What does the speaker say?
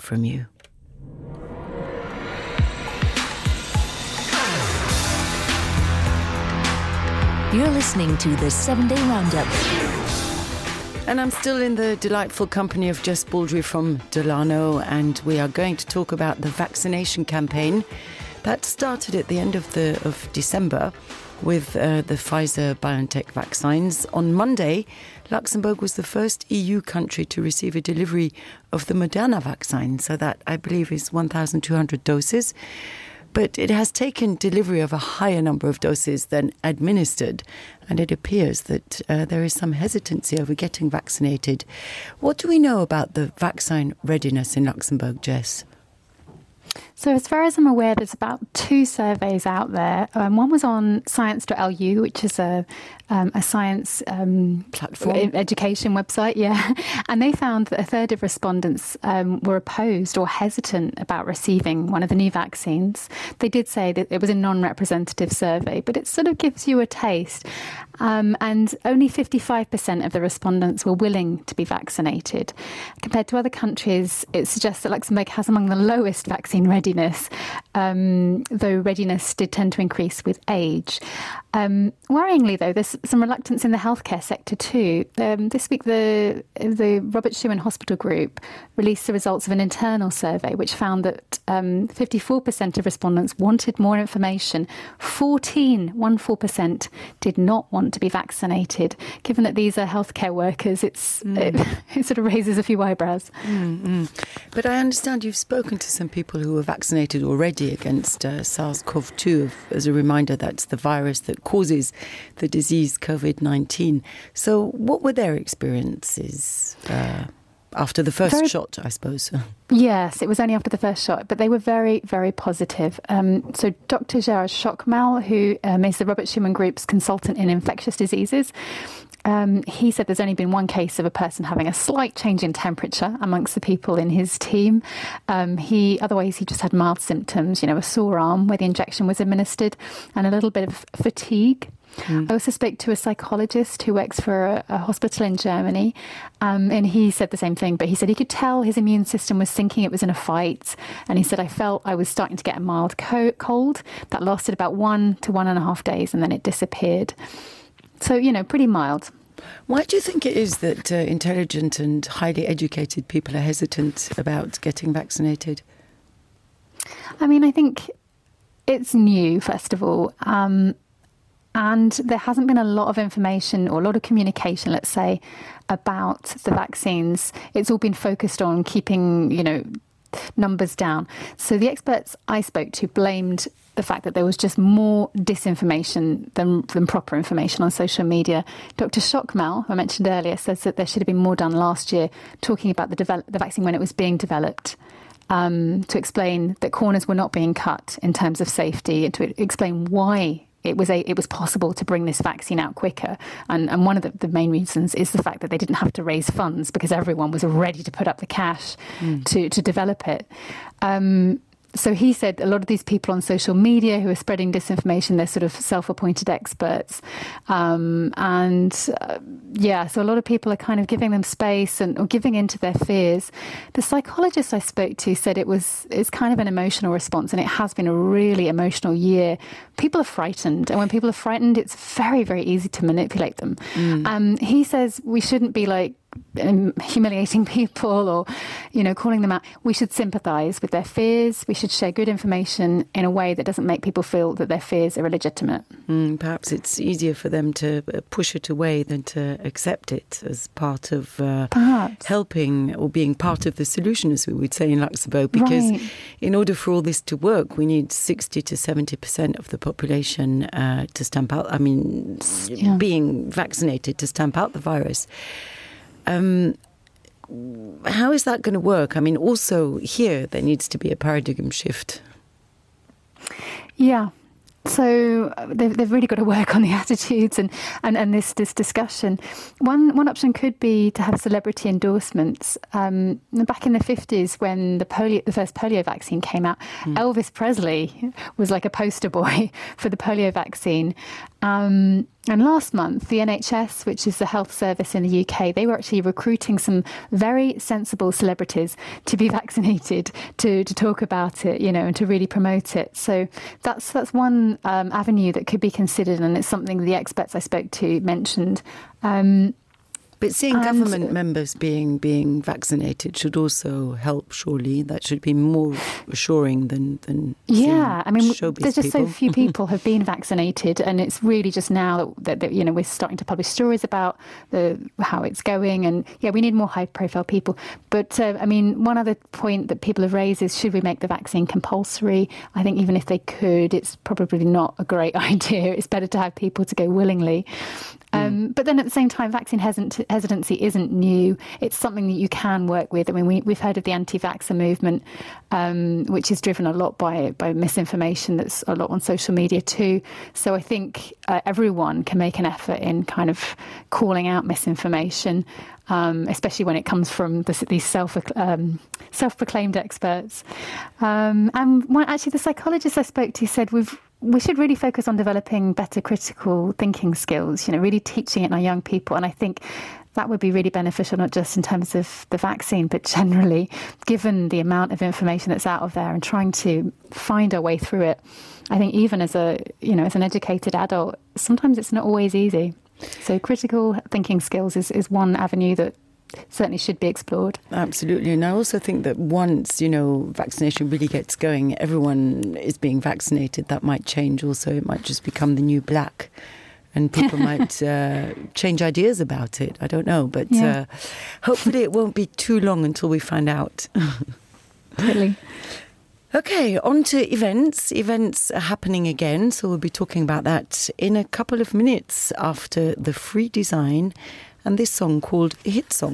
from you. You're listening to the 7-Day Roundup. And I'm still in the delightful company of Jess Baldry from Delano, and we are going to talk about the vaccination campaign that started at the end of December with the Pfizer-BioNTech vaccines. On Monday, Luxembourg was the first EU country to receive a delivery of the Moderna vaccine, so that, I believe, is 1,200 doses. But it has taken delivery of a higher number of doses than administered, and it appears that there is some hesitancy over getting vaccinated. What do we know about the vaccine readiness in Luxembourg, Jess? So as far as I'm aware, there's about 2 surveys out there. One was on science.lu, which is a science platform education website, yeah. And they found that a third of respondents were opposed or hesitant about receiving one of the new vaccines. They did say that it was a non-representative survey, but it sort of gives you a taste. And only 55% of the respondents were willing to be vaccinated. Compared to other countries, it suggests that Luxembourg has among the lowest vaccine readiness, though readiness did tend to increase with age. Worryingly, though, there's some reluctance in the healthcare sector too. This week, the Robert Schuman Hospital Group released the results of an internal survey which found that 54% of respondents wanted more information. 14% did not want to be vaccinated. Given that these are healthcare workers, it sort of raises a few eyebrows. But I understand you've spoken to some people who were vaccinated already against SARS-CoV-2. As a reminder, that's the virus that causes the disease COVID-19. So what were their experiences after the first shot, I suppose? Yes, it was only after the first shot, but they were very, very positive. So Dr. Gerard Schockmal, who is the Robert Schuman Group's consultant in infectious diseases, he said there's only been one case of a person having a slight change in temperature amongst the people in his team. Otherwise, he just had mild symptoms, a sore arm where the injection was administered and a little bit of fatigue. I also spoke to a psychologist who works for a hospital in Germany, and he said the same thing, but he said he could tell his immune system was thinking it was in a fight, and he said, I felt I was starting to get a mild cold that lasted about 1 to 1.5 days, and then it disappeared. So, pretty mild. Why do you think it is that intelligent and highly educated people are hesitant about getting vaccinated? I think it's new, first of all. And there hasn't been a lot of information or a lot of communication, let's say, about the vaccines. It's all been focused on keeping, numbers down. So the experts I spoke to blamed the fact that there was just more disinformation than proper information on social media. Dr. Schockmal, who I mentioned earlier, says that there should have been more done last year talking about the vaccine when it was being developed. To explain that corners were not being cut in terms of safety and to explain why it was possible to bring this vaccine out quicker. And one of the main reasons is the fact that they didn't have to raise funds because everyone was ready to put up the cash to develop it. So he said a lot of these people on social media who are spreading disinformation, they're sort of self-appointed experts. So a lot of people are kind of giving them space or giving into their fears. The psychologist I spoke to said it's kind of an emotional response, and it has been a really emotional year. People are frightened, and when people are frightened, it's very, very easy to manipulate them. He says we shouldn't be humiliating people or, calling them out. We should sympathise with their fears. We should share good information in a way that doesn't make people feel that their fears are illegitimate. Perhaps it's easier for them to push it away than to accept it as part of helping or being part of the solution, as we would say in Luxembourg, because in order for all this to work, we need 60 to 70% of the population to stamp out, being vaccinated to stamp out the virus. How is that going to work? Also here there needs to be a paradigm shift. Yeah. So they've really got to work on the attitudes and this discussion. One option could be to have celebrity endorsements. Back in the 50s, when the first polio vaccine came out, Elvis Presley was like a poster boy for the polio vaccine. And last month, the NHS, which is the health service in the UK, they were actually recruiting some very sensible celebrities to be vaccinated, to talk about it, and to really promote it. So that's one avenue that could be considered, and it's something the experts I spoke to mentioned. But seeing government members being vaccinated should also help, surely. That should be more assuring than yeah, I mean, there's just people. so few people have been vaccinated, and it's really just now that we're starting to publish stories about how it's going, and we need more high-profile people. But I mean, one other point that people have raised is, should we make the vaccine compulsory? I think even if they could, it's probably not a great idea. It's better to have people to go willingly. But then at the same time, vaccine hesitancy isn't new. It's something that you can work with. I mean, we've heard of the anti-vaxxer movement, which is driven a lot by misinformation. That's a lot on social media too. So I think everyone can make an effort in kind of calling out misinformation, especially when it comes from these self-proclaimed experts. And actually, the psychologist I spoke to said we should really focus on developing better critical thinking skills, really teaching it in our young people. And I think that would be really beneficial, not just in terms of the vaccine, but generally, given the amount of information that's out of there and trying to find our way through it. I think even as an educated adult, sometimes it's not always easy. So critical thinking skills is one avenue that certainly should be explored. Absolutely. And I also think that once, vaccination really gets going, everyone is being vaccinated. That might change also. It might just become the new black. And people might change ideas about it. I don't know. But hopefully it won't be too long until we find out. Really. Okay, on to events. Events are happening again. So we'll be talking about that in a couple of minutes after the Free Design and this song called Hit Song.